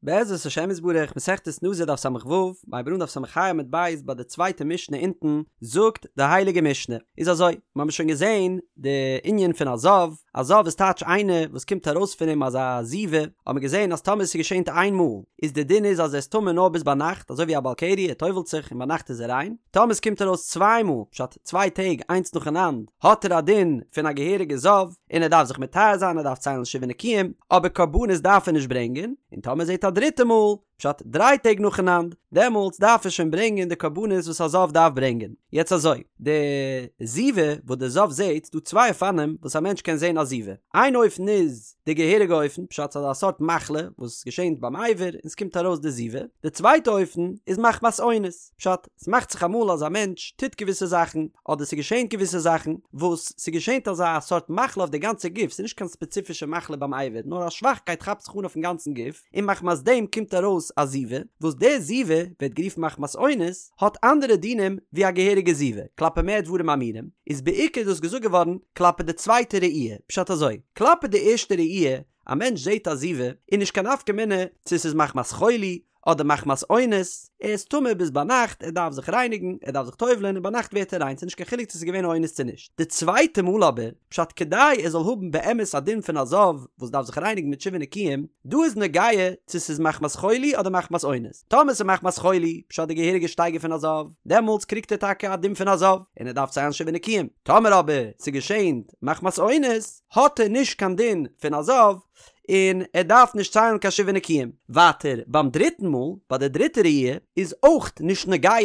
בעזרת השם יתברך, מסכת נזיר דף ס"ו, מ'הייבט אן דף ס"ה עמוד ב' ביי די צווייטע משנה אונטן, זאגט די הייליגע משנה, איז אזוי, מיר האבן שוין געזען די ענין פון א זב, א זב איז טייטש איינער וואס קומט ארויס פון אים אזא זיבה, האבן מיר געזען אז טאמער ס'געשענט איין מאל, איז די דין איז אז ער איז טמא נאר ביז ביינאכט, אזוי ווי א בעל קרי, ער טובל'ט זיך און ביינאכט איז ער ריין, טאמער ס'קומט ארויס צוויי מאל, פשט צוויי טעג איינס נאכאנאנד, האט ער א דין פון א געהעריגע זב, און ער דארף זיך מטהר זיין, ער דארף ציילן שבעה נקיים, אבער קרבנות דארף ער נישט ברענגען, און טאמער זעט א דריטע מאל, פשט דריי טעג נאכאנאנד, דעמאלטס דארף ער שוין ברענגען די קרבנות וואס א זב דארף ברענגען. יעצט אזוי, די זיבה וואס די זב זעט, ס'דא צוויי אופנים וואס א מענטש קען זען א זיבה, איין אופן איז די געהעריגע אופן, פשט ס'איז אזא סארט מחלה וואס געשענט ביים אבר און ס'קומט ארויס די זיבה, די צווייטע אופן איז מחמת אונס, פשט, ס'מאכט זיך אמאל אז א מענטש טוט געוויסע זאכן, אדער ס'געשענט געוויסע זאכן, וואס ס'געשענט אזא סארט מחלה אויף די גאנצע גוף, ס'איז נישט קיין ספעציפישע מחלה ביים אבר, נאר א שוואכקייט כאפט זיך אן אויפן גאנצן גוף, און מחמת דעם קומט ארויס א זיבה, וואס די זיבה ווערט גערופן מחמת אונס, האט אנדערע דינים ווי א געהעריגע זיבה, כלפי מה דברים אמורים, איז בעיקר דאס געזאגט געווארן כלפי די צווייטע ראי', פשט אזוי, כלפי די ערשטע ראי', א מענטש זעט א זיבה, איז נישט קיין נפקא מינה צו ס'איז מחמת חולי, אדער מחמת אונס, ער איז טמא ביז ביינאכט, ער דארף זיך רייניגן, ער דארף זיך טובל'ען און ביינאכט ווערט ער ריין, ס'איז נישט קיין חילוק צו ס'איז געווען אונס צו נישט. די צווייטע מאל אבער, פשט כדי ער זאל האבן באמת א דין פון א זב וואס דארף זיך רייניגן מיט שבעה נקיים, דא איז נוגע צו ס'איז מחמת חולי אדער מחמת אונס. טאמער ס'איז מחמת חולי, פשט די געהעריגע שטייגער פון א זב, דעמאלטס קריגט ער טאקע א דין פון א זב, און ער דארף ציילן שבעה נקיים. טאמער אבער ס'געשענט מחמת אונס, האט ער נישט קיין דין פון א זב, און ער דארף נישט ציילן קיין שבעה נקיים. ווייטער ביים דריטן מאל, ביי די דריטע ראי', איז אויך נישט נוגע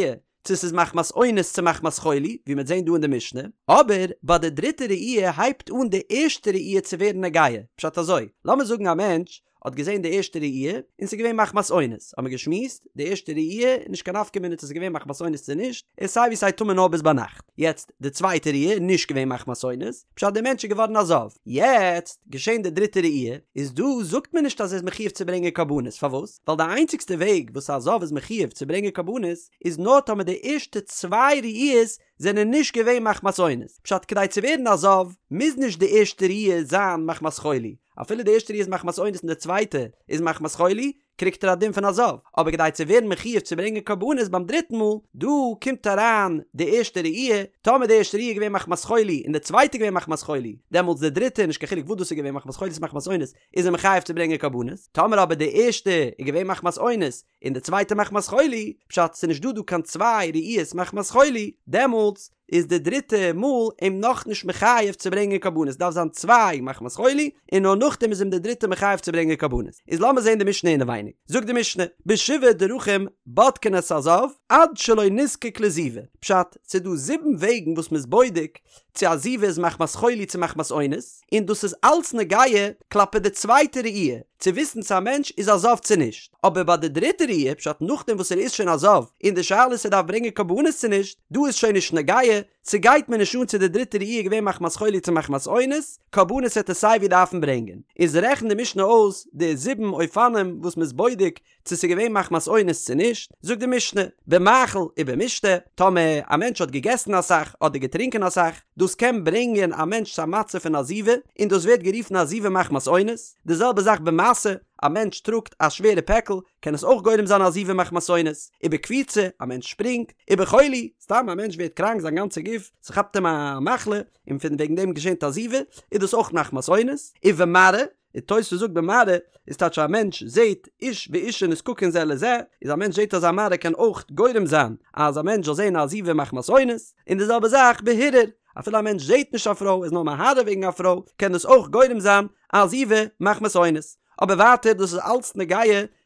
צו ס'איז מחמת אונס צו מחמת חולי, ווי מ'וועט זען דא אין די משנה, אבער ביי די דריטע ראי' הייבט אן די ערשטע ראי' צו ווערן נוגע, פשט אזוי, לאמיר זאגן א מענטש האט געזען די ערשטע ראי' און ס'איז געווען מחמת אונס, האמיר געשמועסט, די ערשטע ראי' איז נישט קיין נפקא מינה צו ס'איז געווען מחמת אונס צו נישט, ער איז סיי ווי סיי טמא נאר ביז ביינאכט. יעצט די צווייטע ראי' איז נישט געווען מחמת אונס, פשט דער מענטש איז געווארן א זב. יעצט געשען די דריטע ראי', איז דא זאגט מען נישט אז ער איז מחיוב צו ברענגען קרבנות, פארוואס? ווייל די איינציגסטע וועג וואס א זב איז מחיוב צו ברענגען קרבנות איז נאר טאמער די ערשטע צוויי ראיות זענען נישט געווען מחמת אונס, פשט כדי צו ווערן א זב מוז נישט די ערשטע ראי' זיין מחמת חולי, אפילו די ערשטע ראי' איז מחמת אונס און די צווייטע איז מחמת חולי, קריגט ער א דין פון א זב, אבער כדי צו ווערן מחיוב צו ברענגען קרבנות ביים דריטן מאל, דא קומט אריין די ערשטע ראי', טאמער די ערשטע ראי' איז געווען מחמת חולי און די צווייטע איז געווען מחמת חולי, דעמאלטס די דריטע, נישט קיין חילוק וואס דאס איז געווען מחמת חולי צו מחמת אונס, איז ער מחויב צו ברענגען קרבנות, טאמער אבער די ערשטע איז געווען מחמת אונס און די צווייטע מחמת חולי, פשט ס'איז נישט דא דא קיין צוויי ראיות מחמת חולי, דעמאלטס איז די דריטע מאל אים נאכנישט מחייב צו ברענגען קרבנות, דארף זיין צוויי מחמת חולי, און נאר נאכדעם איז אים די דריטע מחייב צו ברענגען קרבנות. איז לאמיר זען די משנה אינעווייניג. זאגט די משנה, בשבעה דרכים בודקין את הזב עד שלא נזקק לזיבה. פשט, ס'איז דא זיבן וועגן וואס מ'איז בודק צו א זיבה איז מחמת חולי צו מחמת אונס, און דאס איז אלץ נוגע כלפי די צווייטע ראי', צו וויסן צו א מענטש איז א זב צו נישט, אבער ביי די דריטע ראי', פשט נאכדעם וואס ער איז שוין א זב, און די שאלה איז צו ער דארף ברענגען קרבנות צו נישט, דא איז שוין נישט נוגע, ס'גייט מיר נישט אן צו די דריטע ראי' איז געווען מחמת חולי צו מחמת אונס, קרבנות וועט ער סיי ווי דארפן ברענגען. איז רעכנט די משנה אויס די זיבן אופנים וואס מ'איז בודק צו ס'איז געווען מחמת אונס צו נישט, זאגט די משנה, במאכל ובמשתה, טאמער א מענטש האט געגעסן אסאך אדער געטרינקען אסאך, דאס קען ברענגען א מענטש צו א מצב פון א זיבה, און דאס ווערט גערופן א זיבה מחמת אונס, די זעלבע זאך במשא, א מענטש טראגט א שווערע פעקל, קען עס אויך גורם זיין א זיבה מחמת אונס, ובקפיצה, א מענטש שפרינגט, ובחולי, סתם א מענטש ווערט קראנק זיין גאנצע גוף, ס'כאפט אים א מחלה, און פון וועגן דעם געשענט א זיבה, איז דאס אויך מחמת אונס, ובמראה, און תוספות זאגט במראה איז טייטש א מענטש זעהט איש ואישה נזקקין זה לזה, איז א מענטש זעהט אזא מראה קען אויך גורם זיין אז א מענטש זאל זעהן א זיבה מחמת אונס, און די זעלבע זאך בהרהור, אפילו א מענטש זעהט נישט א פרוי איז נאר מהרהר וועגן א פרוי קען דאס אויך גורם זיין א זיבה מחמת אונס. אבער ווייטער דאס איז אלץ נוגע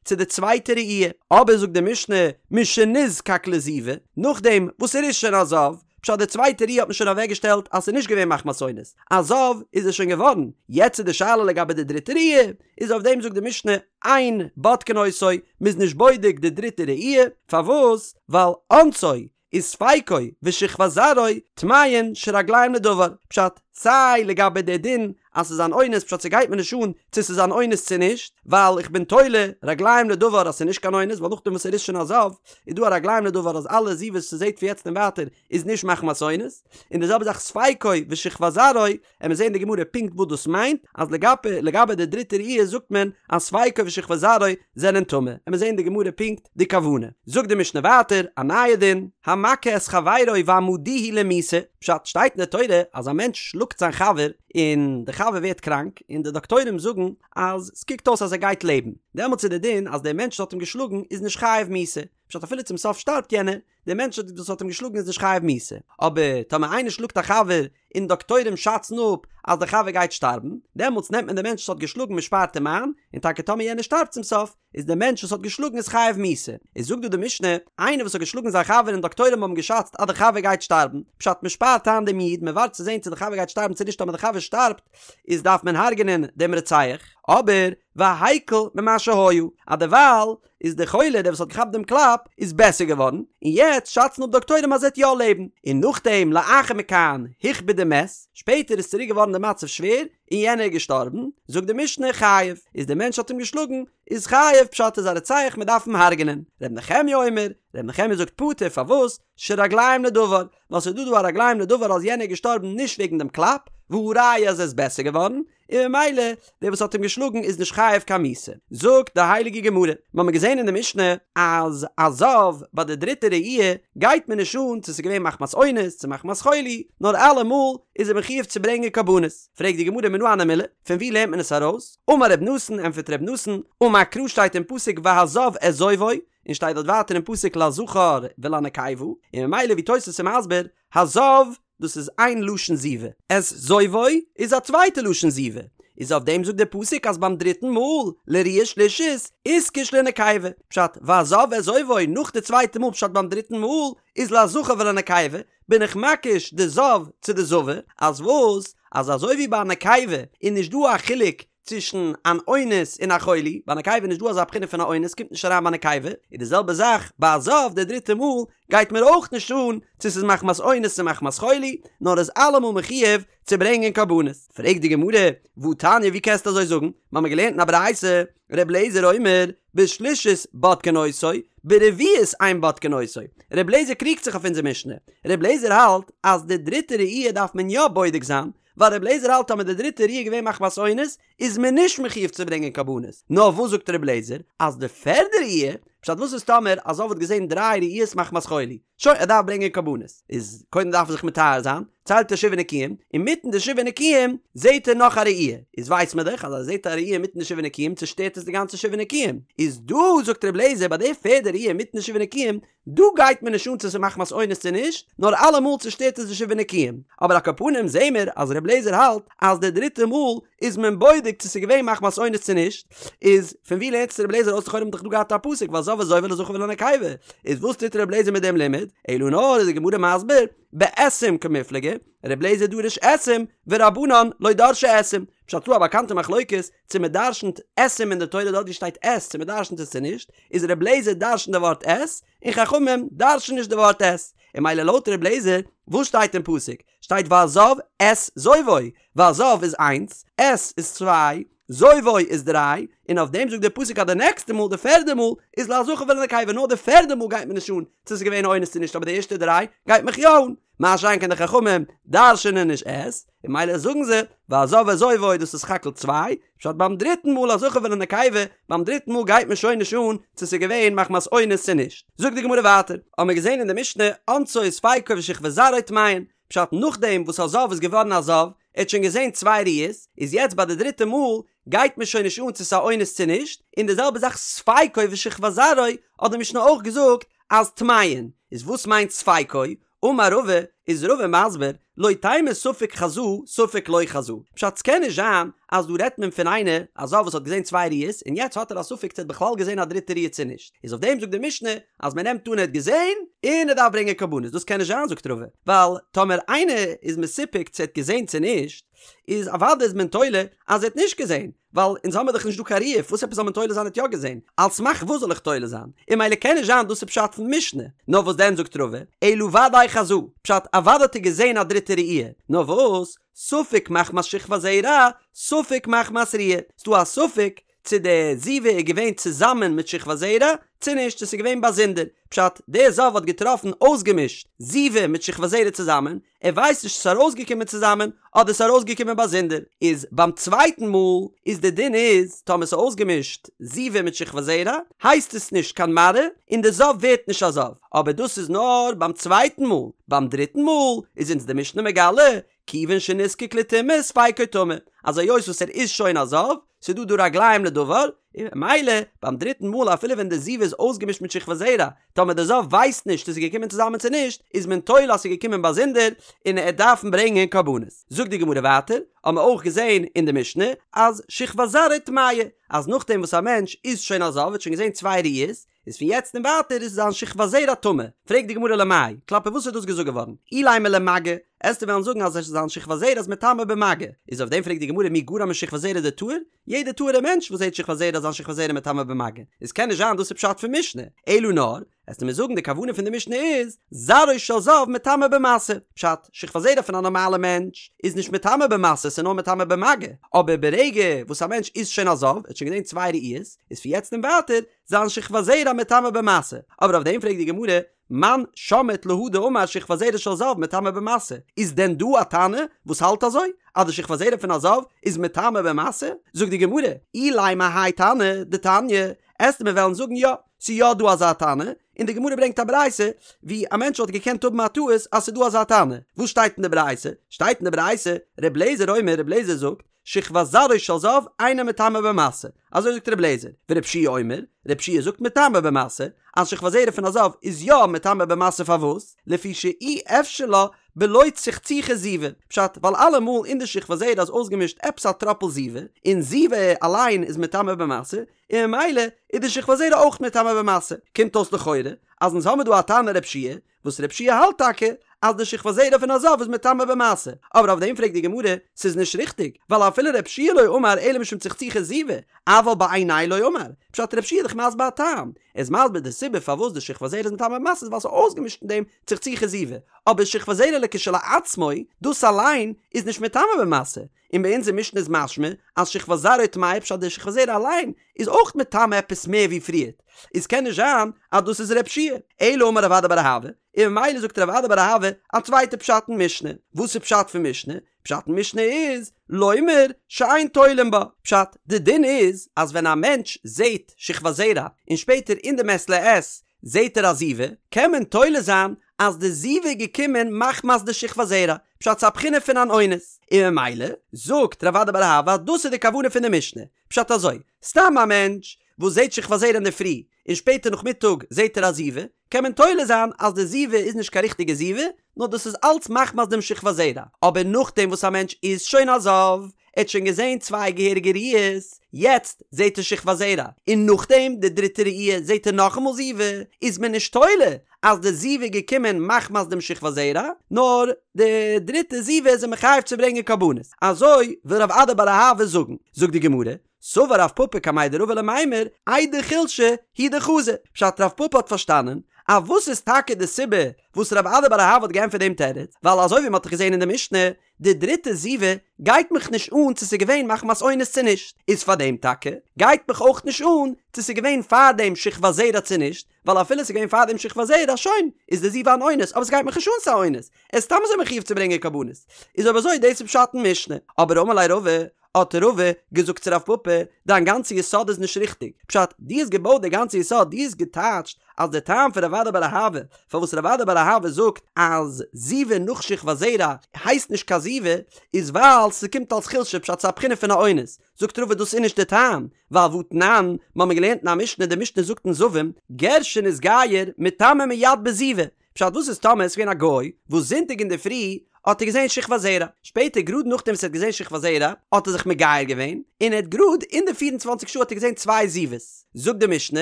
צו די צווייטע ראי', אבער זאגט די משנה משנזקק לזיבה, נאכדעם וואס ער איז שוין א זב, פשט די צווייטע ראי' האט מען שוין אוועקגעשטעלט אז ס'איז נישט געווען מחמת אונס, א זב איז ער שוין געווארן, יעצט איז די שאלה לגבי די דריטע ראי', איז אויף דעם זאגט די משנה אין בודקין אותו, מ'איז נישט בודק די דריטע ראי', פארוואס? ווייל אונסו וספיקו ושכבת זרעו טמאין שרגליהם לדבר, פשט, סיי לגבי די דין. אז ס'איז אן אונס פשט ס'גייט מיר נישט אן צו ס'איז אן אונס צו נישט ווייל איך בין תולה רגליים לדבר אז ס'איז נישט קיין אונס ווייל נאכדעם וואס ער איז שוין א זב איז דא א רגליים לדבר אז אלע זיבות וואס ס'זעט פון יעצט און ווייטער איז נישט מחמת אונס און די זעלבע זאך ספיקו ושכבת זרעו עמיר זעהן אין די גמרא פונקט וואס דאס מיינט, אז לגבי לגבי די דריטע ראי' זאגט מען אז ספיקו ושכבת זרעו זענען טמא, עמיר זעהן אין די גמרא פונקט די כוונה. זאגט די משנה ווייטער א נייע דין, המכה את חברו והעמדוהו למיתה, פשט שטייט אין די תורה אז א מענטש שלאגט זיין חבר און די חבר ווערט קראנק און די דאקטוירים זאגן אז ס'קוקט אויס אז ער גייט לעבן, דעמאלטס איז די דין אז דער מענטש וואס האט אים געשלאגן איז נישט חייב מיתה, פשט אפילו צום סוף שטארבט יענער, דער מענטש וואס האט אים געשלאגן איז נישט חייב מיתה, אבער טאמער איינער שלאגט א חבר און דאקטוירים שאצן אפ אז דער חבר גייט שטארבן, דעמאלטס נעמט מען דעם מענטש וואס האט געשלאגן מען שפארט אים איין, און טאקע טאמער יענער שטארבט צום סוף, איז דער מענטש וואס האט געשלאגן איז חייב מיתה. איז זאגט דא די משנה, איינער וואס האט געשלאגן זיין חבר און דאקטוירים האבן געשאצט אז דער חבר גייט שטארבן, פשט מען שפארט איין דעם איד, מען ווארט צו זען צו דער חבר גייט שטארבן צו נישט, טאמער דער חבר שטארבט, איז דארף מען הרג'נען דעם רוצח, אבער והקל ממה שהיה, אז דערווייל איז דער חולה דער וואס האט געכאפט דעם קלאפ איז בעסער געווארן, און יעצט שאצן אפ דאקטוירים אז ער וועט יא לעבן, און נאכדעם לאחר מכאן הכביד ומת, שפעטער איז צוריק געווארן די מצב שווער און יענער איז געשטארבן, זאגט די משנה חייב, איז דער מענטש האט אים געשלאגן איז חייב, פשט איז א רוצח מען דארף אים הרג'נען, ר' נחמיה אומר, ר' נחמיה זאגט פטור פארוואס, שרגליים לדבר, ווייל ס'איז דא דא א רגליים לדבר אז יענער איז געשטארבן נישט וועגן דעם קלאפ, והא ראיה אז ער איז בעסער געווארן, און ממילא דער וואס האט אים געשלאגן איז נישט חייב קיין מיתה. זאגט די הייליגע גמרא, מיר האבן געזען אין די משנה אז א זב ביי די דריטע ראי' גייט מען נישט אן צו ס'איז געווען מחמת אונס צו מחמת חולי, נאר אלעמאל איז ער מחויב צו ברענגען קרבנות. פרעגט די גמרא מנא הני מילי, פון וואו לערנט מען עס ארויס? אמר ר' נתן, ענטפערט ר' נתן, אמר קרא שטייט אין פסוק והזב את זובו, און שטייט דארט ווייטער אין פסוק לזכר ולנקבה, און ממילא ווי תוס' איז מסביר, הזב דאס איז איין לשון זיבה, את זובו איז א צווייטע לשון זיבה, איז אויף דעם זאגט דער פסוק אז ביים דריטן מאל, לראיה שלישית, איתקש לנקבה, פשט, והזב את זובו נאך די צווייטע מאל פשט ביים דריטן מאל איז לזכר ולנקבה, בין איך מקיש די זב צו די זבה, אז וואס? אז אזוי ווי ביי א נקבה איז נישט דא א חילוק צווישן אן אונס און א חולי, ביי נקבה איז נישט דא אזא בחינה פון א אונס, קומט נישט אריין ביי נקבה, איז די זעלבע זאך ביי א זב די דריטע מאל גייט מיר אויך נישט אן צו ס'איז מחמת אונס צו מחמת חולי, נאר איז אלעמאל מחויב צו ברענגען קרבנות. פרעגט די גמרא, והתניא ווי קענסטו אזוי זאגן? מ'האמיר געלערנט אין א ברייתא, ר' אליעזר אומר, בשלישית בודקין אותו, ברביעית אין בודקין אותו. ר' אליעזר קריגט זיך אויף אונזער משנה. ר' אליעזר האלט אז די דריטע ראי' דארף מען יא בודק זיין, ווייל רבי אליעזר האלט אז מיט די דריטע ראי' געווען מחמת אונס איז מען נישט מחויב צו ברענגען קרבנות, נאר וואס זאגט רבי אליעזר אז די פערדע ראי', פשט וואס איז טאמער א זב האט געזען דריי ראיות מחמת חולי, שוין ער דארף ברענגען קרבנות, איז קודם דארף ער זיך מטהר זיין, ציילט ער שבעה נקיים, אינמיטן די שבעה נקיים זעט ער נאך א ראי', איז ווייסט מען דאך אז אז ער זעט א ראי' אינמיטן די שבעה נקיים צושטערט עס די גאנצע שבעה נקיים, איז דא זאגט רבי אליעזר ביי די פערדע ראי' אינמיטן די שבעה נקיים דא גייט מיר נישט אן צו ס'איז מחמת אונס צו נישט, נאר אלעמאל צושטערט עס די שבעה נקיים. אבער על כל פנים זעהן מיר אז ר' לעזער האלט אז די דריטע מאל איז מען בודק צו ס'איז געווען מחמת אונס צו נישט, איז פון ווי לערנט עס ר' לעזער אויס לכאורה האט מען דאך דא געהאט א פסוק והזב את זובו לזכר ולנקבה, איז וואס טוט ר' לעזער מיט דעם לימוד? אלא נאר איז די גמרא מסביר, באתים קמיפלגי, ר' לעזער דריש אתים ורבנן לא דרשי אתים, פשט ס'דא א באקאנטע מחלוקת צו מען דרשנ'ט אתים אין די תורה דארט ווי שטייט את צו מען דרשנ'ט עס צו נישט, איז ר' לעזער דרשנ'ט די ווארט את, און חכמים דרש'ן נישט די ווארט את, און ממילא לויט ר' לעזער, וואס שטייט אין פסוק? שטייט והזב את זובו, והזב איז איינס, את איז צוויי, זובו איז דריי, און אויף דעם זאגט דער פסוק אז די נעקסטע מאל, די פערדע מאל, איז לזכר ולנקבה, נאר די פערדע מאל גייט מיר נישט אן צו ס'איז געווען אונס צו נישט אבער די ערשטע דריי גייט מיך יא אן, מה שאין כן די חכמים דרש'ענען נישט את, און ממילא זאגן זיי, והזב את זובו דאס איז סך הכל צוויי, פשט ביים דריטן מאל א זכר ולנקבה, ביים דריטן מאל גייט מיר שוין נישט אן צו ס'איז געווען מחמת אונס צו נישט. זאגט די גמרא ווייטער, האמיר געזען אין די משנה, אונסו ספיקו ושכבת זרעו טמאין, פשט נאכדעם וואס א זב איז געווארן א זב, ער האט שוין געזען צוויי ראיות, איז יעצט ביי די דריטע מאל גייט מיר שוין נישט אן צו ס'איז א אונס צו נישט, און די זעלבע זאך ספיקו ושכבת זרעו האט די משנה אויך געזאגט אז טמאין, איז וואס מיינט ספיקו? אמר רבא, איז רבא מסביר, לא תימא ספק חזא ספק לא חזא, פשט ס'קען נישט זיין אז דא רעדט מען פון איינער א זב וואס האט געזען צוויי ראיות און יעצט האט ער א ספק צו ער האט בכלל געזען א דריטע ראיה צו נישט, איז אויף דעם זאגט די משנה אז מען נעמט אן ער האט געזען און ער דארף ברענגען קרבנות, דאס קען נישט זיין זאגט רבא, ווייל טאמער איינער איז מסופק צו ער האט געזען צו נישט, איז אוודאי איז מען תולה אז ער האט נישט געזען, ווייל אונז האמיר דאך נישט דא קיין ראיה, וואס עפעס זאל מען תולה זיין ער האט יא געזען? על סמך וואס זאל איך תולה זיין? און ממילא קען נישט זיין דאס איז פשט פון משנה. נאר וואס דען זאגט רבא, אלא ודאי חזא, פשט אוודאי האט ער געזען א דריטע ראי', נאר וואס? ספק מחמת שכבת זרע, ספק מחמת ראיה, ס'דא א ספק צו די זיבה איז געווען צוזאמען מיט שכבת זרע צו נישט, צו ס'איז געווען באזונדער, פשט, דער זב האט געטראפן אויסגעמישט זיבה מיט שכבת זרע צוזאמען, ער ווייסט נישט צו ס'איז ארויסגעקומען צוזאמען אדער ס'איז ארויסגעקומען באזונדער, איז ביים צווייטן מאל איז די דין איז טאמער ס'איז אויסגעמישט זיבה מיט שכבת זרע הייסט עס נישט קיין מראה און די זב ווערט נישט א זב, אבער דאס איז נאר ביים צווייטן מאל, ביים דריטן מאל איז אונז די משנה מגלה כיוון שנזקק לטומאה ספיקו טמא, אז היות וואס ער איז שוין א זב, ס'איז דא דא רגליים לדבר, און ממילא ביים דריטן מאל אפילו ווען די זיבה איז אויסגעמישט מיט שכבת זרע, טאמער די זב ווייסט נישט צו ס'איז געקומען צוזאמען צו נישט, איז מען תולה אז ס'איז געקומען באזונדער, און ער דארפן ברענגען קרבנות. זאגט די גמרא ווייטער, האבן מיר אויך געזען אין די משנה, אז שכבת זרעו טמאה, אז נאכדעם וואס א מענטש איז שוין א זב, האט שוין געזען צוויי ראיות, איז פון יעצט און ווייטער איז זיין שכבת זרע טמא. פרעגט די גמרא למאי, כלפי וואס איז דאס געזאגט געווארן? אילימא למגע, עסטו וועלן זאגן אז זיין שכבת זרע איז מטמא במגע. איז אויף דעם פרעגט די גמרא מי גרע משכבת זרע דטהור? יעדער טהור'ער מענטש וואס זעט שכבת זרע איז זיין שכבת זרע מטמא במגע. איז קען נישט זיין דאס איז פשט פון משנה. אלא נאר, עסטו מיר זאגן די כוונה פון די משנה איז, זרעו של זב מטמא במשא. פשט, שכבת זרע פון א נארמאלע מענטש איז נישט מטמא במשא, ס'איז נאר מטמא במגע. אבער ברגע וואס א מענטש איז שוין א זב, ער האט שוין געזען צוויי ראיות, איז פון יעצט און ווייטער זיין שכבת זרע מטמא במשא. אבער אויף דעם פרעגט די גמרא, מאן שמעת להא דאמר שכבת זרע של זב מטמא במשא, איז דען דא א תנא וואס האלט אזוי אז די שכבת זרע פון א זב איז מטמא במשא? זאגט די גמרא, אילימא האי תנא דתניא, עסטו מיר וועלן זאגן יא, ס'איז יא דא אזא תנא, און די גמרא ברענגט א ברייתא ווי א מענטש וואלט געקענט האבן א טעות אז ס'איז דא אזא תנא, וואס שטייט אין די ברייתא? שטייט אין די ברייתא, ר' לעזער אומר, ר' לעזער זאגט, שכבת זרעו של זב אינה מטמאה במשא, אזוי זאגט ר' לעזער, ור' יהושע אומר, ר' יהושע זאגט מטמאה במשא, אז שכבת זרע פון א זב איז יא מטמא במשא פארוואס? לפי שאי אפשר לה בלא צחצוחי זיבה, פשט, ווייל אלעמאל אין די שכבת זרע איז אויסגעמישט עפעס א טראפל זיבה, און זיבה אליין איז מטמא במשא, און ממילא איז די שכבת זרע אויך מטמא במשא, קומט אויס לכאורה אז אונז האמיר דא א תנא ר' יהושע וואס ר' יהושע האלט טאקע אז די שכבת זרע פון א זב איז מטמא במשא, אבער אויף דעם פרעגט די גמרא, ס'איז נישט ריכטיג, ווייל אפילו ר' יהושע לא אמר אלא משום צחצוחי זיבה, אבל בעיניה לא אמר, פשט ר' יהושע איז דאך מסביר א טעם, ער איז מסביר די סיבה פארוואס די שכבת זרע איז מטמא במשא איז ווייל ס'איז אויסגעמישט אין דעם צחצוחי זיבה, אבער שכבת זרע לכשלעצמו, דאס אליין איז נישט מטמא במשא, און ביי אונזער משנה איז משמע אז שכבת זרעו טמאה פשט די שכבת זרע אליין איז אויך מטמא עפעס מער ווי פריערט, איז קען נישט זיין אז דאס איז ר' יהושע, אלא אמר רב אדא בר אהבה, און ממילא זאגט רב אדא בר אהבה א צווייטע פשט אין משנה, וואס איז פשט פון משנה? פשט אין משנה איז, לומר שאין תולין בה, פשט, די דין איז אז ווען א מענטש זעהט שכבת זרע און שפעטער אין די מעת לעת זעהט ער א זיבה, קען מען תולה זיין אז די זיבה איז געקומען מחמת די שכבת זרע, פשט ס'איז א בחינה פון אן אונס, און ממילא זאגט רב אדא בר אהבה אז דאס איז די כוונה פון די משנה, פשט אזוי, סתם א מענטש וואס זעהט שכבת זרע אינדערפרי און שפעטער נאכמיטאג זעהט ער א זיבה, קען מען תולה זיין אז די זיבה איז נישט קיין ריכטיגע זיבה, נאר דאס איז אלץ מחמת דעם שכבת זרע, אבער נאכדעם וואס א מענטש איז שוין א זב, ער האט שוין געזען צוויי געהעריגע ראיות, יעצט זעט ער שכבת זרע, און נאכדעם די דריטע ראי' זעט ער נאכאמאל זיבה, איז מען נישט תולה אז די זיבה איז געקומען מחמת דעם שכבת זרע, נאר די דריטע זיבה איז ער מחויב צו ברענגען קרבנות. אזוי וויל רב אדא בר אהבה זאגן. זאגט די גמרא, סבר רב פפא קמיה דרבא למימר, איידי חולשא הוא דחזא, פשט רב פפא האט פארשטאנען אז וואס איז טאקע די סיבה וואס רב אדא בר אהבה האט געענטפערט דעם תירוץ, ווייל אזוי ווי מען האט דאך געזען אין די משנה, די דריטע זיבה גייט מיך נישט אן צו ס'איז געווען מחמת אונס צו נישט, איז פאר דעם טאקע גייט מיך אויך נישט אן צו ס'איז געווען פאר דעם שכבת זרע צו נישט, ווייל אפילו ס'איז געווען פאר דעם שכבת זרע שוין איז די זיבה אן אונס, אבער ס'גייט מיך נישט אן ס'איז א אונס, ער איז סתם אזוי מחויב צו ברענגען קרבנות, איז אויב אזוי דאס איז פשט אין משנה, אבער אמר ליה רבא, האט רבא געזאגט צו רב פפא, דיין גאנצע יסוד איז נישט ריכטיג, פשט, דו האסט געבויט די גאנצע יסוד, דו האסט געטייטשט אז די טעם פון רב אדא בר אהבה, פארוואס רב אדא בר אהבה זאגט אז זיבה נאך שכבת זרע הייסט נישט קיין זיבה, איז ווייל ס'קומט אלס חולשה, פשט ס'איז א בחינה פון א אונס, זאגט רבא דאס איז נישט די טעם, ווייל והתנן, מ'האמיר געלערנט אין א משנה, די משנה זאגט אין זבים, גר שנתגייר מטמא מיד בזיבה, פשט וואס איז טאמער עס איז געווען א גוי וואס זונטאג אינדערפרי האט ער געזען שכבת זרע, שפעטער גראד נאכדעם וואס ער האט געזען שכבת זרע האט ער זיך מגייר געווען, און ער האט גראד אין די פיר און צוואנציג שעה האט ער געזען צוויי זיבות, זאגט די משנה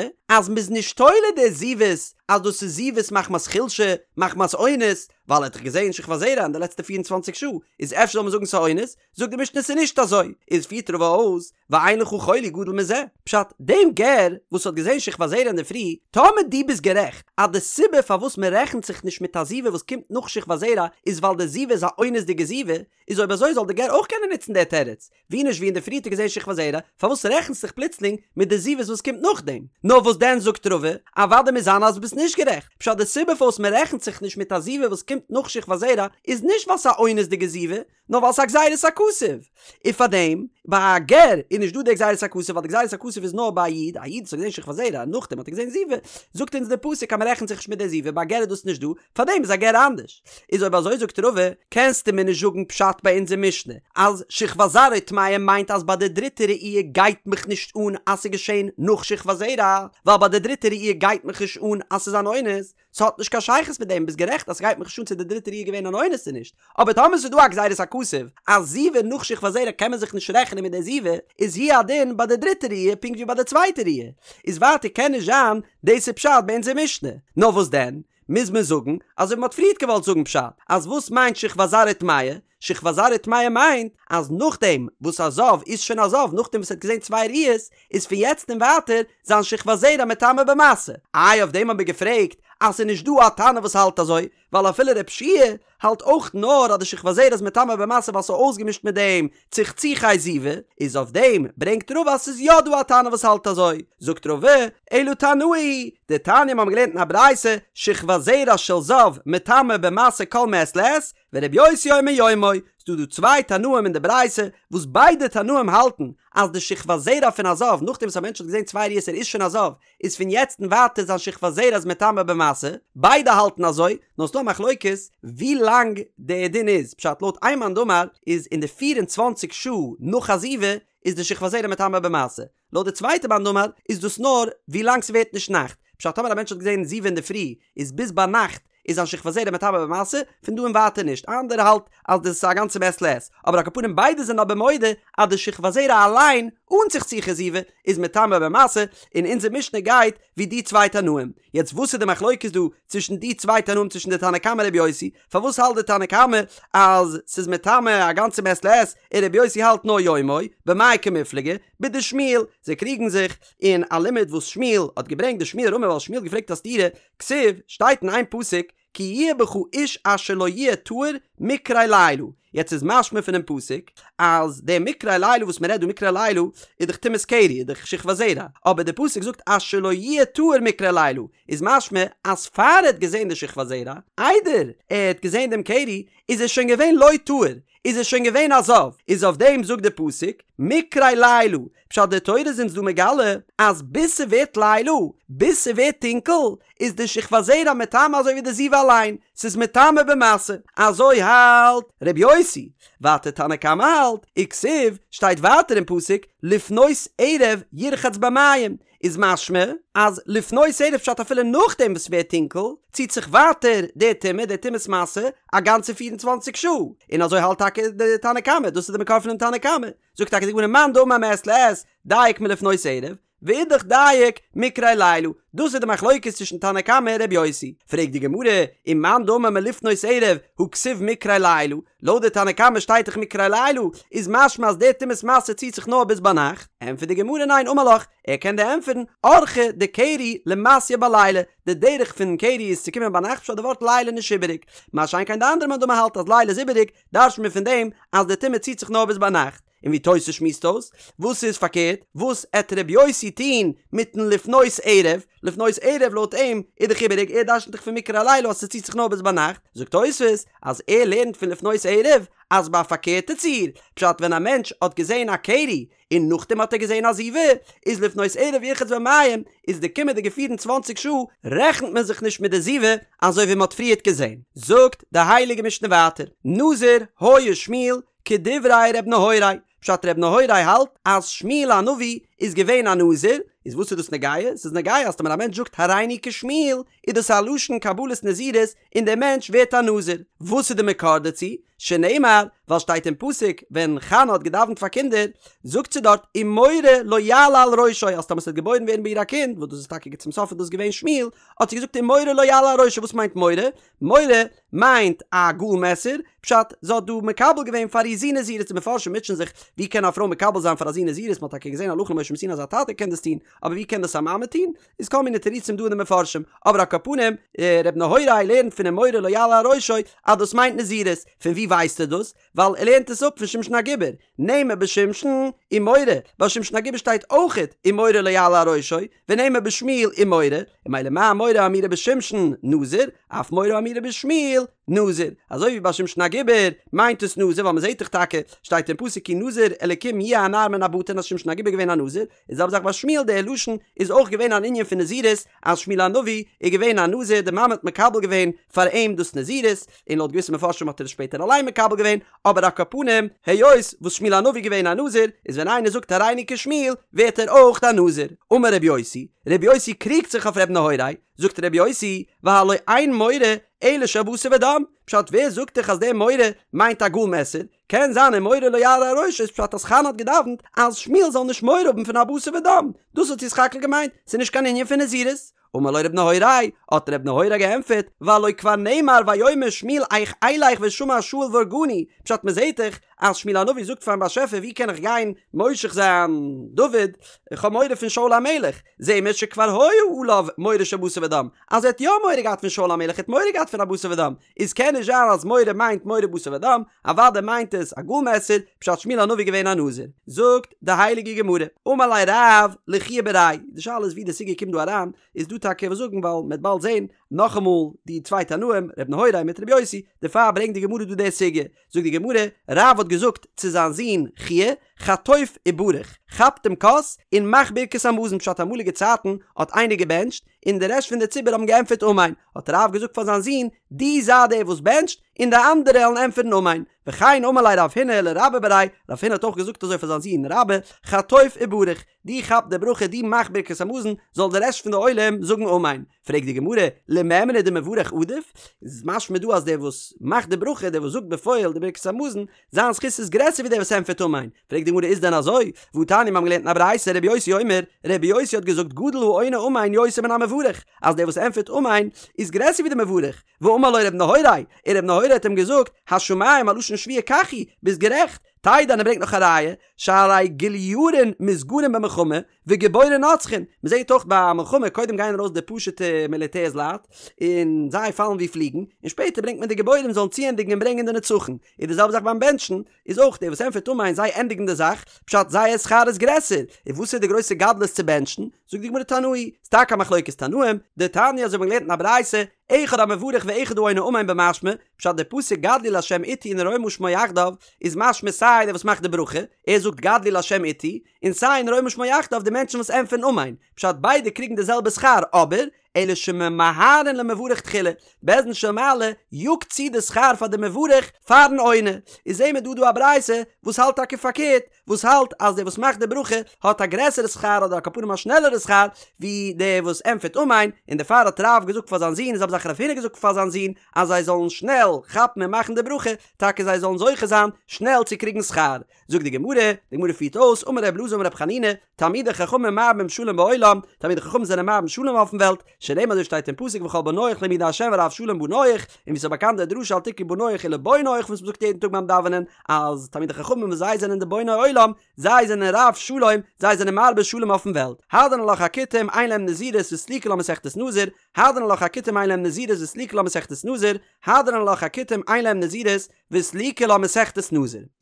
אז מ'איז נישט תולה די זיבות אז דאס איז זיבות מחמת חולשה, מחמת אונס, ווייל ער האט דאך געזען שכבת זרע אין די לעצטע 24 שעה, איז אפשר זאל מען זאגן ס'איז אונס? זאגט די משנה ס'איז נישט אזוי, איז פירט רבא אויס, ואין לך חולי גדול מזה, פשט, דעם גר וואס האט געזען שכבת זרע אינדערפרי, טאמער דו ביסט גערעכט אז די סיבה פארוואס מען רעכנט זיך נישט מיט א זיבה וואס קומט נאך שכבת זרע איז ווייל די זיבה איז א אונס'דיגע זיבה, איז אויב אזוי זאל די גר אויך קענען נוצן די תירוץ, ווי נישט ווי אינדערפרי האט ער געזען שכבת זרע, פארוואס רעכנסט זיך פלוצלינג מיט די זיבות וואס קומט נאכדעם? נאר וואס דען זאגט רבא, אוודאי מוז זיין אז ביסט נישט גערעכט, פשט די סיבה פארוואס מען רעכנט זיך נישט מיט א זיבה וואס קומט נאך שכבת זרע איז נישט ווייל ס'איז א אונס'דיגע זיבה, נאר ווייל ס'איז א גזירת הכתוב. און פארדעם, ביי א גר איז נישט דא די גזירת הכתוב ווייל די גזירת הכתוב איז נאר ביי א איד, א איד וואס האט געזען שכבת זרע און נאכדעם האט ער געזען זיבה, זאגט אונז די פסוק אז מען רעכנט זיך נישט מיט די זיבה, ביי א גר איז דאס נישט דא, פארדעם איז א גר אנדערש. איז אויב אזוי זאגט רבא, קענסטו מיר נישט זאגן פשט ביי אונזער משנה אז שכבת זרעו טמאה מיינט אז ביי די דריטע ראי' גייט מיך נישט אן אז ס'איז געשען נאך שכבת זרע, ווייל ביי די דריטע ראי' גייט מיך נישט אן אז ס'איז אן אונס, ס'האט נישט קיין שייכות מיט דעם, ביסט גערעכט אז ס'גייט מיך נישט אן צו די דריטע ראי' געווען אן אונס צו נישט, אבער טאמער ס'איז דא א גזירת הכתוב אז זיבה נאך שכבת זרע קען מען זיך נישט רעכענען מיט די זיבה, איז הוא הדין ביי די דריטע ראי' פונקט ווי ביי די צווייטע ראי', איז ווייטער קען נישט זיין דאס איז פשט ביי אונזער משנה, נאר וואס דען? מוז מען זאגן אזוי ווי מ'האט פריערט געוואלט זאגן פשט, אז וואס מיינט שכבת זרעו טמאה? שכבת זרעו טמאה מיינט אז נאכדעם וואס א זב איז שוין א זב נאכדעם וואס ער האט געזען צוויי ראיות איז פון יעצט און ווייטער זיין שכבת זרע מטמא במשא. איי אויף דעם האט מען געפרעגט אז ס'איז נישט דא א תנא וואס האלט אזוי, ווייל אפילו רב שיע האלט אויך נאר אז די שכבת זרע איז מטמא במשא ווייל ס'איז אויסגעמישט מיט דעם צחצוחי זיבה, איז אויף דעם ברענגט רבא אז ס'איז יא דא א תנא וואס האלט אזוי, זאגט רבא, אלא תנאי, דתניא מ'האבן געלערנט אין א ברייתא, שכבת זרע של זב מטמא במשא כל מעת לעת, ורבי יוסי אומר יומו, ס'דא דא צוויי תנאים אין די ברייתא, וואס ביידע תנאים האלטן אז די שכבת זרע פון א זב נאכדעם וואס א מענטש האט געזען צוויי ראיות ער איז שוין א זב, איז פון יעצט און ווייטער זיין שכבת זרע איז מטמא במשא, ביידע האלטן אזוי, נאר ס'דא א מחלוקת ווי לאנג די דין איז, פשט לויט איין מאן דאמר איז אין די 24 שעה נאך א זיבה איז די שכבת זרע מטמא במשא, לויט די צווייטע מאן דאמר איז דאס נאר ווי לאנג ס'ווערט נישט נאכט, פשט טאמער א מענטש האט געזען זיבה אינדערפרי איז ביז ביינאכט איז זיין שכבת זרע מטמא במשא, פון דא און ווייטער נישט, א אנדערע האלט אז דאס איז א גאנצע מעת לעת, אבער על כל פנים ביידע זענען אבער מודה אז די שכבת זרע אליין אן צחצוחי זיבה איז מטמא במשא, און אונזער משנה גייט ווי די צוויי תנאים. יעצט וואס איז די מחלוקת דא צווישן די צוויי תנאים צווישן די תנא קמא און רבי יוסי? פארוואס האלט די תנא קמא אז ס'איז מטמא א גאנצע מעת לעת און רבי יוסי האלט נאר יומו? במאי קמיפלגי? בדשמואל, זיי קריגן זיך אין א לימוד וואס שמואל האט געברענגט דשמואל רמי ווייל שמואל האט געפרעגט א סתירה, כתיב, שטייט אין איין פסוק, כי יהיה בך איש אשר לא יהיה טהור מקרה לילה, יעצט איז משמע פונעם פסוק אז די מקרה לילה וואס מען רעדט דא מקרה לילה איז דאך טומאת קרי איז דאך שכבת זרע, אבער די פסוק זאגט אשר לא יהיה טהור מקרה לילה איז משמע אז פאר ער האט געזען די שכבת זרע, איידער ער האט געזען דעם קרי, איז ער שוין געווען לא טהור, איז ער שוין געווען א זב, איז אויף דעם זאגט די פסוק מקרה לילה, פשט די תורה איז אונז דא מגלה אז ביז ס'ווערט לילה, ביז ס'ווערט טונקל, איז די שכבת זרע מטמא אזוי ווי די זיבה אליין, ס'איז מטמא במשא, אזוי האלט ר' יוסי, ווייטער תנא קמא האלט, וכתיב, שטייט ווייטער אין פסוק, לפנות ערב ירחץ במים, איז משמע אז לפנות ערב פשט אפילו נאכדעם וואס ס'ווערט טונקל, ציט זיך ווייטער די טומאה, די טומאת משא, א גאנצע 24 שעה, און אזוי האלט טאקע די תנא קמא, דאס איז די מקור פונעם תנא קמא, זאגט טאקע די גמרא מאן דאמר מעת לעת דייק מלפנות ערב, ואידך דייק מקרה לילה, דאס איז די מחלוקת צווישן תנא קמא און ר' יוסי, פרעגט די גמרא, ומאן דאמר מלפנות ערב הא כתיב מקרה לילה, לויט די תנא קמא שטייט דאך מקרה לילה, איז משמע אז די טומאת משא ציט זיך נאר ביז ביינאכט, ענטפערט די גמרא ניין אמר לך, ער קען דיר ענטפערן, אורחא דקרי למתיא בליליא, די דרך פון קרי איז צו קומען ביינאכט פשט די ווארט לילה נישט איבעריג, מה שאין כן די אנדערע מאן דאמר האלט אז לילה איז איבעריג, דרש'נט מען פון דעם אז די טומאה ציט זיך נאר ביז ביינאכט, און ווי תוס' שמועסט אויס, וואס איז פארקערט, וואס עט ר' יוסי טוהן מיטן לפנות ערב, לפנות ערב לויט אים איז דאך איבעריג, ער דרש'נט דאך פון מקרה לילה אז ס'ציט זיך נאר ביז ביינאכט, זאגט תוס' אז ער לערנט פון לפנות ערב אז ביי א פארקערטע ציור, פשט ווען א מענטש האט געזעהן א קרי און נאכדעם האט ער געזעהן א זיבה, איז לפנות ערב ירחץ במים, איז די קומענדיגע 24 שעה רעכנט מען זיך נישט מיט די זיבה, אזוי ווי מען האט פריערט געזעהן. זאגט די הייליגע משנה ווייטער, נזיר היה שמואל כדברי ר' נהוראי, פשט ר' נהוראי האלט אז שמואל הנביא איז געווען א נזיר, איז וואס איז דאס נוגע? ס'איז נוגע אז טאמער א מענטש זאגט הריני כשמואל איז דאס א לשון קבלת נזירות און דער מענטש ווערט א נזיר. וואס איז די מקור דערצו? שנאמר, ווייל שטייט אין פסוק ווען חנה האט געדאווענט פאר קינדער, זאגט זי דארט ומורה לא יעלה על ראשו אז טאמער ס'וועט געבוירן ווערן ביי איר א קינד, וואס דאס איז טאקע צום סוף איז דאס געווען שמואל, האט זי געזאגט ומורה לא יעלה על ראשו, וואס מיינט מורה? מורה מיינט א גאל מעסער, פשט, זי האט דא מקבל געווען פאר איר זון נזירות, די מפרשים מוטשען זיך, ווי קען א פרוי מקבל זיין פאר א זון נזירות, מ'האט טאקע געזען הלכה למשה מסיני אז א טאטע קען דאס טון, אבער ווי קען דאס א מאמע טון? איז כל מיני תירוצים דא אין די מפרשים, אבער על כל פנים, ר' נהוראי לערנט פון ומורה לא יעלה על ראשו אז דאס מיינט נזירות, פון ווי ווייסט ער דאס? ווייל ער לערנט עס אפ פון שמשון הגיבור, נאמר בשמשון ומורה, ביי שמשון הגיבור שטייט אויכעט ומורה לא יעלה על ראשו, ונאמר בשמואל ומורה, און ממילא מה מורה האמורה בשמשון נזיר, אף מורה האמורה בשמואל נזיר, אזוי ווי ביי שמשון הגיבור מיינט עס נזיר ווייל מ'זעט דאך טאקע שטייט אין פסוק כי נזיר אלקים יהיה הנער מן הבטן אז שמשון הגיבור איז געווען א נזיר, איז זעלבע זאך ביי שמואל דער לשון איז אויך געווען אן ענין פון נזירות אז שמואל הנביא איז געווען א נזיר די מאמע האט מקבל געווען פאר אים דאס נזירות און לויט געוויסע מפרשים האט ער עס שפעטער אליין מקבל געווען אבער על כל פנים היות וואס שמואל הנביא איז געווען א נזיר איז ווען איינער זאגט הריני כשמואל ווערט ער אויך א נזיר אמר רבי יוסי רבי יוסי קריגט זיך אויף רבי נהוראי זאגט רבי יוסי והלא אין מורה אלא של בשר ודם פשט ווער זאגט דיך אז דער מורה מיינט א גאל מעסער קען זיין ומורה לא יעלה על ראשו איז פשט אז חנה האט געדאווענט אז שמואל זאל נישט מורא האבן פון א בשר ודם, דאס האט זי סך הכל געמיינט, ס'איז נישט קיין ענין פון נזירות. אמר לו רב נהוראי, האט רב נהוראי געענטפערט, והלא כבר נאמר ויאמר שמואל איך אלך ושמע שאול והרגני, פשט מ'זעהט דאך אז שמואל הנביא זאגט פארן באשעפער ווי קען איך גיין מושח זיין דוד, איך האב מורא פון שאול המלך, זעהן מיר שכבר היה עליו מורא של בשר ודם, אז ער האט יא מורא געהאט פון שאול המלך, ער האט מורא געהאט פון א בשר ודם, איז קען נישט זיין אז מורה מיינט מורא בשר ודם, אוודאי מיינט עס א גאל מעסער, פשט שמואל הנביא געווען א נזיר. זאגט די הייליגע גמרא, אמר ליה רב לחייא בריה, די שאלה איז ווי די סוגיא קומט דא אריין, איז דא טאקע וואס זאגן ווייל מ'עט באלד זען נאכאמאל די צוויי תנאים ר' נהוראי מיט ר' יוסי, דערפאר ברענגט די גמרא דא די סוגיא, זאגט די גמרא, רב האט געזאגט צו זיין זון חייא, חטוף וברך, כאפ דעם כוס און מאך ברכת המזון, פשט אמאליגע צייטן האט איינער געבענטשט, און די רעשט פון די ציבור האבן געענטפערט אמן, האט רב געזאגט פאר זיין זון, דו זיי דער וואס בענטשט, און די אנדערע וועלן ענטפערן אמן. וכן אמר ליה רב הונא לרבה בריה, רב הונא האט אויך געזאגט אזוי פאר זיין זון רבה, חטוף וברך, דו כאפ די ברכה, דו מאך ברכת המזון, זאל די רעשט פון די עולם זאגן אמן. פרעגט די גמרא, למימרא דמברך עדיף? איז משמע דא אז דער וואס מאכט די ברכה, דער וואס זאגט בפועל די ברכת המזון, זיין זכות איז גרעסער ווי דער וואס ענטפערט אמן. פרעגט די גמרא איז דען אזוי? והתניא מיר האבן געלערנט אין א ברייתא רבי יוסי אומר, רבי יוסי האט געזאגט גדול העונה אמן יותר מן המברך, אז דער וואס ענטפערט אמן איז גרעסער ווי דער מברך, ואמר לו רבי נהוראי, און רבי נהוראי האט אים געזאגט, השמים א לשון שבועה כך הוא, ביסט גערעכט, תדע און ער ברענגט נאך א ראיה, שהרי גולירין מתגרין במלחמה, וגיבורין נוצחין, מען זעט אויך ביי א מלחמה קודם גייען ארויס די פשוטע מיליטערס לייט, און זיי פאלן ווי פליגן, און שפעטער ברענגט מען די גיבורים זאלן צוענדיגן און ברענגען די נצחון, איז די זעלבע זאך ביים בענטשן, איז אויך דער וואס ענטפערט אמן זיי ענדיגן די זאך, פשט זייער שכר איז גרעסער, און וואס איז די גרויסע גדלות צו בענטשן? זאגט די גמרא תנאי, ס'איז טאקע א מחלוקת תנאים, דתניא אזוי האט מען געלערנט אין א ברייתא, אחד המברך ואחד העונה אמן במשמע, פשט די פסוק גדלו לה' אתי ונרוממה שמו יחדיו, איז משמע סיי דער וואס מאכט די ברכה, ער זאגט גדלו לה' אתי, און סיי ונרוממה שמו יחדיו די מענטשן וואס ענטפערן אמן, פשט ביידע קריגן די זעלבע שכר, אבער, אלא שממהרין למברך תחילה, בית דין של מעלה יאגט צו די שכר פאר די מברך פארן עונה, איז זעהן מיר דא דא א ברייתא וואס האלט טאקע פארקערט, וואס האלט אז דער וואס מאכט די ברכה האט א גרעסערע שכר אדער על כל פנים א שנעלערע שכר ווי דער וואס ענטפערט אמן, און דערפאר האט רב געזאגט פאר זיין זון און זעלבע זאך רב הונא געזאגט פאר זיין זון אז זיי זאלן שנעל כאפן און מאכן די ברכה, טאקע זיי זאלן זוכה זיין שנעל צו קריגן שכר. זאגט די גמרא, די גמרא פירט אויס, אמר ר' אלעזר אמר ר' חנינא, תלמידי חכמים מרבים שלום בעולם, תלמידי חכמים זענען מרבים שלום אויפן וועלט, שנאמר אזוי שטייט אין פסוק וכל בניך לימודי ה' ורב שלום בניך, און ווי ס'איז באקאנט די דרשה אל תקרי בניך אלא בוניך וואס מ'זאגט יעדן טאג ביים דאווענען, אז תלמידי חכמים וואס זיי זענען די בוני עולם, זיי זענען רב שלום, זיי זענען מרבה שלום אויפן וועלט. הדרן עלך הכותים אין להם נזירות וסליקא לה מסכת נזיר, הדרן עלך הכותים אין להם נזירות וסליקא לה מסכת נזיר, הדרן עלך הכותים אין להם נזירות וסליקא לה מסכת נזיר.